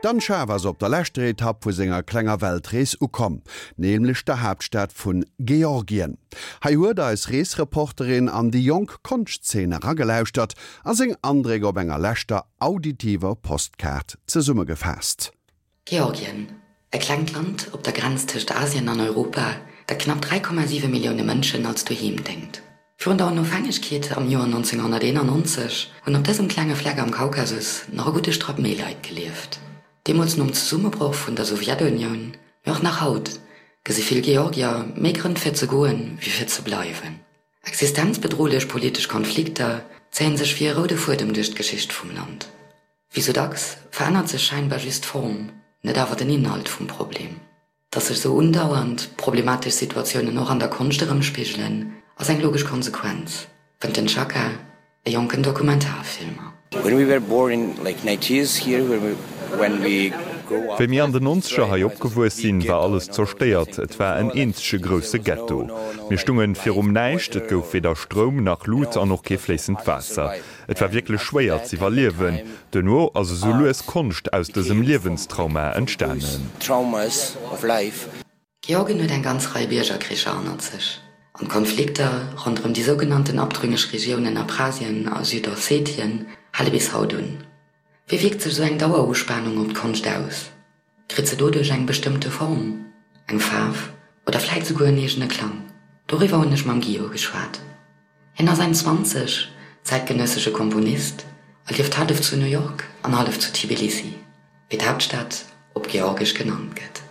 D'Anne Schaaf ass op der leschter Etapp vu senger klenger Weltrees ukomm, nämlech der Haaptstad vun Georgien. Hei huet eis Reesreporterin an déi jonk Konschtzeen eragelauschtert a seng Andréck op enger leschter auditiver Postkaart zesummegefaasst. Georgien, e klengt Land op der Grenz tëscht Asien an Europa, dat knapp 3,7 Millioune Mënschen als Doheem déngt. Virun der Onofhängegkeet am Joer 1991 hunn op dësem klenge Fleck am Kaukasus nach e gudde Strapp méi Leit gelieft. Deemools nom Zesummebroch vun der Sowjetunioun, mee och nach haut, gesi vill Georgier méi Grënn fir ze goen, wéi fir ze bleiwen. Existenzbedrohlech politesch Konflikter zéien sech wéi e roude Fuedem duerch d'Geschicht vum Land. Wéi sou dacks verännert sech scheinbar just d'Form, net awer den Inhalt vum Problem. Datt sech sou undauernd problematesch Situatiounen och an der Konscht erëmspigelen, ass eng logesch Konsequenz, fënnt den Chaka, e jonken Dokumentarfilmer. Wéi mir an den Nonzeger hei opgewuess sinn, war alles zerstéiert. Et war en eenzege grousse Ghetto. Mir stungen virum Näischt, et gouf weder Stroum nach Lut an och kee fléissend Waasser. Et war wierklech schwéier z'iwwerliewen. Duerno ass esou lues Konscht aus dësem Liewenstrauma entstanen. Georgien huet eng ganz Rei Biergerkricher hannert sech, an d'Konflikter ronderëm déi sougenannten abtrünneg Regiounen Abchasien a Südossetien hale bis haut un. Wéi wierkt sech esou eng Daueruspanung op d'Konscht aus? Kritt se doduerch eng bestëmmte Form, eng Faarf oder vläit souguer en eegene Klang? Doriwwer hunn ech mam Guillaume geschwat. Hien ass Enn 20, zäitgenëssesche Komponist a lieft hallef zu New York an hallef zu Tbilisi, wéi d'Haaptstad op Georgesch genannt gëtt.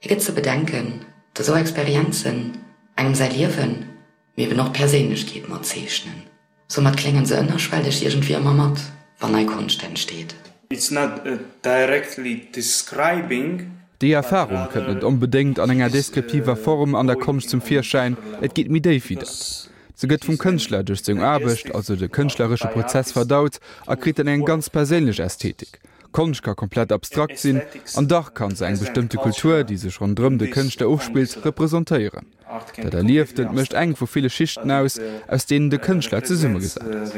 Hie gëtt ze bedenken, datt esou Experienzen engem säi Liewen, mee eben och d'Perséinlechkeet mat zeechnen. Soumat kléngen se ënnerschwelleg iergendwéi ëmmer mat, wann nei Konscht entsteet. It's not directly describing. Déi Erfarung kënnt net onbedéngt an enger deskriptiver Form an der Konscht zum Virschäin, et geet méi déif wéi dat. Se gëtt vum Kënschtler duerch seng Aarbecht, also de kënschtleresche Prozess verdaut a kritt dann eng ganz perséinlech Ästhetik. Konscht ka komplett abstrakt sinn an dach kann se eng bestëmmte Kultur, déi sech ronderëm de Kënschtler ofspillt, representéieren. Dat Erlieftent mécht eng vu ville Schichten aus, aus deenen de Kënschtler zesummegesat ass.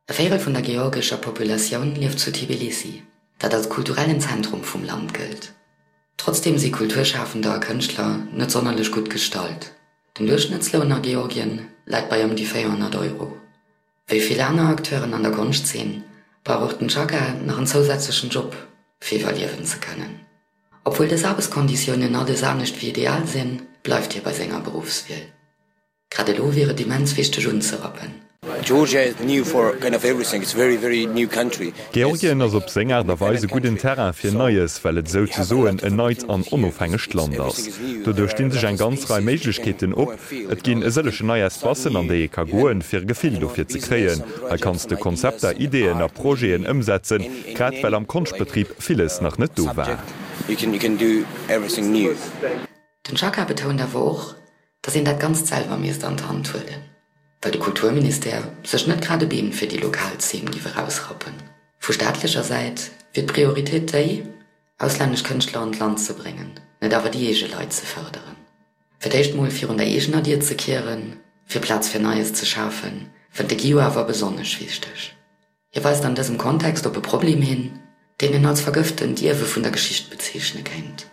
E Véirel vun der georgescher Populatioun lieft zu Tbilissi, dat als kulturellen Zentrum vum Land gëllt. Trotzdeem si Kulturschafender a Kënschtler net sonnerlech gutt gestallt. Den Duerchschnëttsloun a Georgien läit bei ëm déi 400 Euro. Wéi vill aner Acteuren an der Konschtzeen brauch och den Chaka nach en zousätzlechen Job, fir iwwerliewen ze kënnen. Obwuel dës Aarbechtskonditiounen alles anescht wéi ideal sinn, bleift hie bei senger Beruffswiel. Grad elo wier et immens wichteg unzerappen. Georgien ass op seng Aart a Weis e gudden Terrain fir Neies, well et souzesoen en neit an onofhängegt Land ass. Doduerch sti sech eng ganz Rei Méiglechkeeten op. Et ginn e sëllechen nei Espacen, an déi ee ka goen, fir e Gefill dofir ze kréien. Hei kanns de Konzepter, Ideeën a Projeten ëmsetzen, grad well am Konschtbetrib villes nach net do war. Den Chaka betount awer och, datt een dat Ganzt selwer misst an d'Hand huelen, well de Kulturministère sech net grad e Been fir déi lokal Zeen giff erausrappen. Vu staatlecher Säit wier d'Prioritéit déi, auslännesch Kënschtler an d'Land ze bréngen, net awer déi eege Leit ze fërderen. Fir d'éischt mol virun der eegener Dier ze kieren, fir Plaz fir Neies ze schafen, fënnt de Guillou awer besonnesch wichteg. Hie weist an dësem Kontext op e Problem hin, deen en als vergëftent Ierwe vun der Geschicht bezeechne kéint,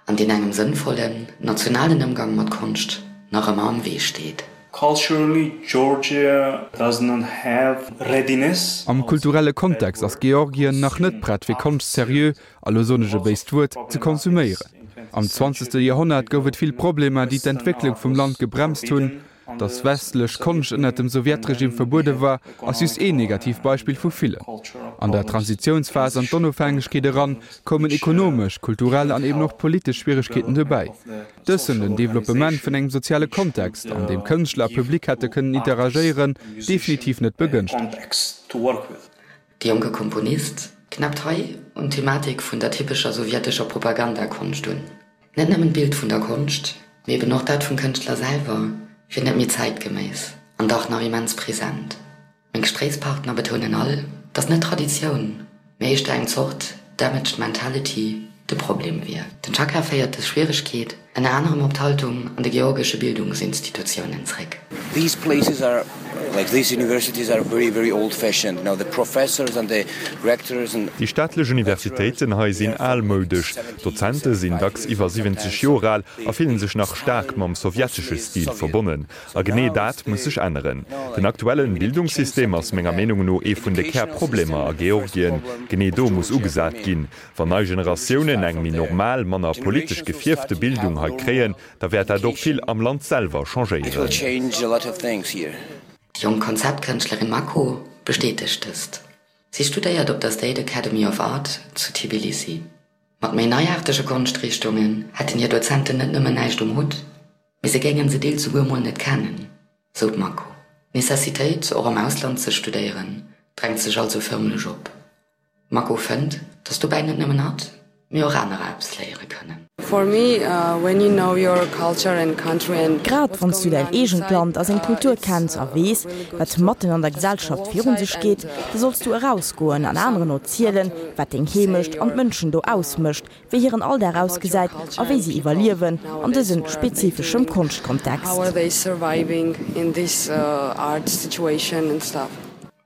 an deen engem sënnvollen, nationalen Ëmgang mat Konscht nach ëmmer am Wee steet. Culturally, Georgia does not have readiness. Am kulturelle Kontext ass Georgien nach net prett fir Konscht seriö a lo soen ech e béist Wuert, ze konsuméieren. Am zwanzegste Joerhonnert gouf et vill Problemer, déi d'Entwécklung vum Land gebremst hunn. Datt westlech Konscht ënnert dem Sowjetregime verbuede war, ass just een Negativbeispill vu villen. An der Transitiounsphas an d'Onofhängegkeet eran koumen ekonomesch, kulturell an eben och politesch Schwieregkeeten dobäi. Dës hunn den Developpement vun engem soziale Kontext, an deem Kënschtler a Public hätte kënnen interagéieren, definitiv net begënschtegt. De jonke Komponist knäppt hei un d'Thematik vun der typescher sowjetescher Propagandakonscht un. Net nëmmen d'Bild vun der Konscht, mee eben och dat vum Kënschtler selwer wier net méi zäitgeméiss an dach nach immens present. Meng Gespréichspartner betounen all, datt net d'Traditioun, mee éischter eng Zort damaged mentality de Problem wier. Den Chaka féiert dës Schwieregkeet ënner anerem op d'Haltung an de georgesche Bildungsinstitutiounen zréck. These places are. Like these universities are very, very old-fashioned. You know, the professors and the rectors and. Déi staatlech Universitéiten hei sinn almoudesch, d'Dozente sinn dacks iwwer 70 Joer al a fillen sech nach staark mam sowjetesche Stil verbonnen. A genee dat muss sech änneren. Den aktuellen Bildungssystem ass menger Meenung no ee vun de Kärproblemer a Georgien. Genee do muss ugesat ginn. Wann nei Generatiounen eng méi normal, manner politesch gefierfte Bildung hei kréien, da wäert dat och vill am Land selwer changéieren. Déi jonk Konzeptkënschtlerin Mako bestätegt dëst. Si studéiert op der State Academy of Art zu Tbilisi. Mat méi neiaartege Konschtrichtungen hätten hir Dozenten net nëmmen näischt um Hutt, mee se géingen se deels souguer mol net kennen, sou d'Mako. D'Necessitéit, och am Ausland ze studéieren, drängt sech also fërmlech op. D'Mako fënnt, datt dobäi net nëmmen hatt, mee och anerer eppes léiere kënnen. Grad wann s du däin eegent Land a seng Kultur kenns a weess, wat matten an der Gesellschaft virun sech geet, da solls du erausgoen an aneren erzielen, wat deng Heemecht an d'Mënschen do ausmécht, wéi hiren Alldag ausgesäit a wéi si iwwerliewen an dësem spezifeschem Konschtkontext.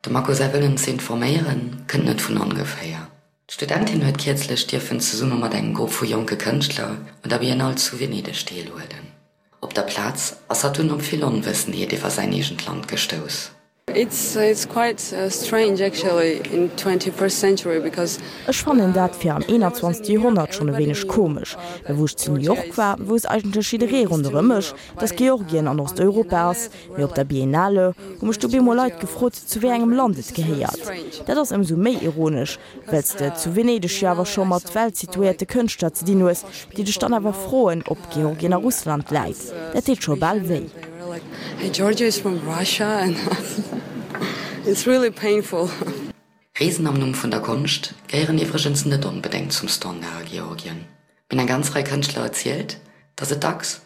Dem Mako säi Wëllen ze informéieren, kënnt net vun ongeféier. D'Studentin huet kierzlech dierfen zesumme mat engem Grupp vu jonke Kënschtler un der Biennale zu Venedeg deelhuelen. Op der Plaz ass hatt dunn op vill Onwëssenheet iwwer säin eegent Land gestouss. Ech fannen dat fir am 21. Joerhonnert schonn e wéineg komesch, well wou ech zu New York war, wousst eigentlech jidderee ronderëm mech, dass Georgien an Osteuropa ass, mee op der Biennale hu mech du bemol Leit gefrot, zu wéi engem Land et gehéiert. Dat ass ëmsou méi ironesch, well s de zu Venedeg jo awer scho mat weltsituéierte Kënschtler ze dinn hues, déi dech dann awer froen, ob Georgien a Russland läit. Dat deet scho bal wéi. Reesen am Numm vun der Konscht gehéieren iwwregens net onbedéngt zum Standard a Georgien. Mir hunn eng ganz Rei Kënschtler erzielt, datt et dacks,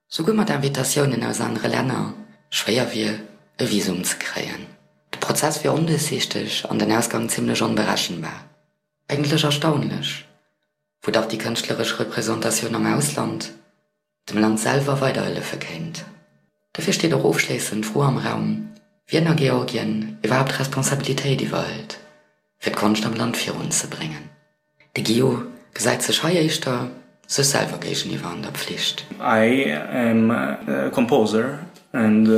souguer mat Invitatiounen aus anere Länner, schwéier wier, e Visum ze kréien. De Prozess wier onduerchsiichteg an den Ausgang zimmlech onberechenbar. Eigentlech erstaunlech, wou dach déi kënschtleresch Representatioun am Ausland dem Land selwer weiderhëllefe kéint. Dofir steet och ofschléissend d'Fro am Raum, wien a Georgien iwwerhaapt Responsabilitéit iwwerhëlt, fir d'Konscht am Land virunzebréngen. De Guillot gesäit sech hei éischter sech selwer géigeniwwer an der Pflicht. I am a composer and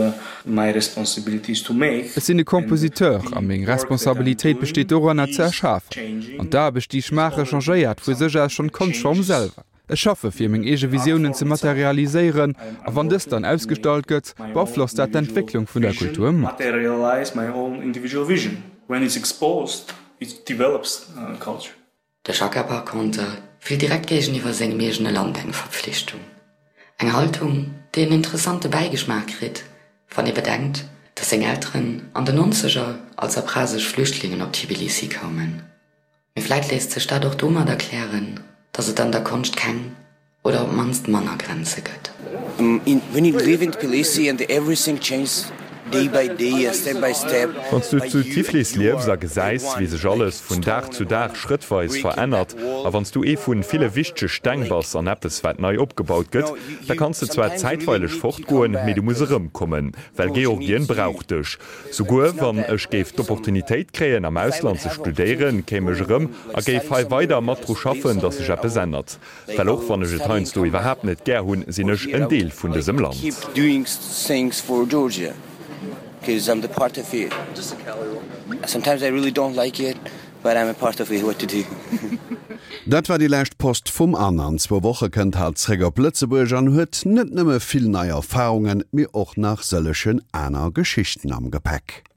my responsibility is to make. Ech sinn e Compositeur a meng Responsabilitéit besteet doranner ze erschafen. An d'Aarbecht déi ech maache changéiert vu sech aus schonn d'Konschtform selwer. Ech schaffe fir meng eege Visiounen ze materialiséieren a wann dës dann ausgestallt gëtt, beaflosst dat d'Entwécklung vun der Kultur mat. De Chaka Parconter fillt direkt géigeniwwer sengem eegene Land eng Verpflichtung. Eng Haltung, déi en interessante Bäigeschmaach kritt, wann ee bedenkt, datt seng Elteren an den Nonzeger als abchasesch Flüchtlingen op Tbilisi koumen. Mee vläit léisst sech dat och domat erklären, datt et an der Konscht keng oder op d'mannst manner Grenze gëtt. When you live in Tbilisi and everything changes day by day and step by step. Wann s du zu Tiflis liefs a gesäis, wéi sech alles vun Dag zu Dag schrëttweis verännert, a wann s du ee vu ville wichtege Steng bass an eppes, wat nei opgebaut gëtt, da kanns de zwar zäitweileg fortgoen, mee du muss erëmkommen, well Georgien brauch dech. Souguer wann ech géif d'Opportunitéit kréien, am Ausland ze studéieren, kéim ech erëm a géif hei weider mat dru schaffen, datt sech eppes ännert. Well och wann ech et heiansdo iwwerhaapt net gär hunn, sinn ech en Deel vun dësem Land. Dat war déi lescht Post vum Anne. An zwou Woche kënnt hatt zréck op Lëtzebuerg an huet net nëmme vill nei Erfarungen, mee och nach sëllegen aner Geschichten am Gepäck.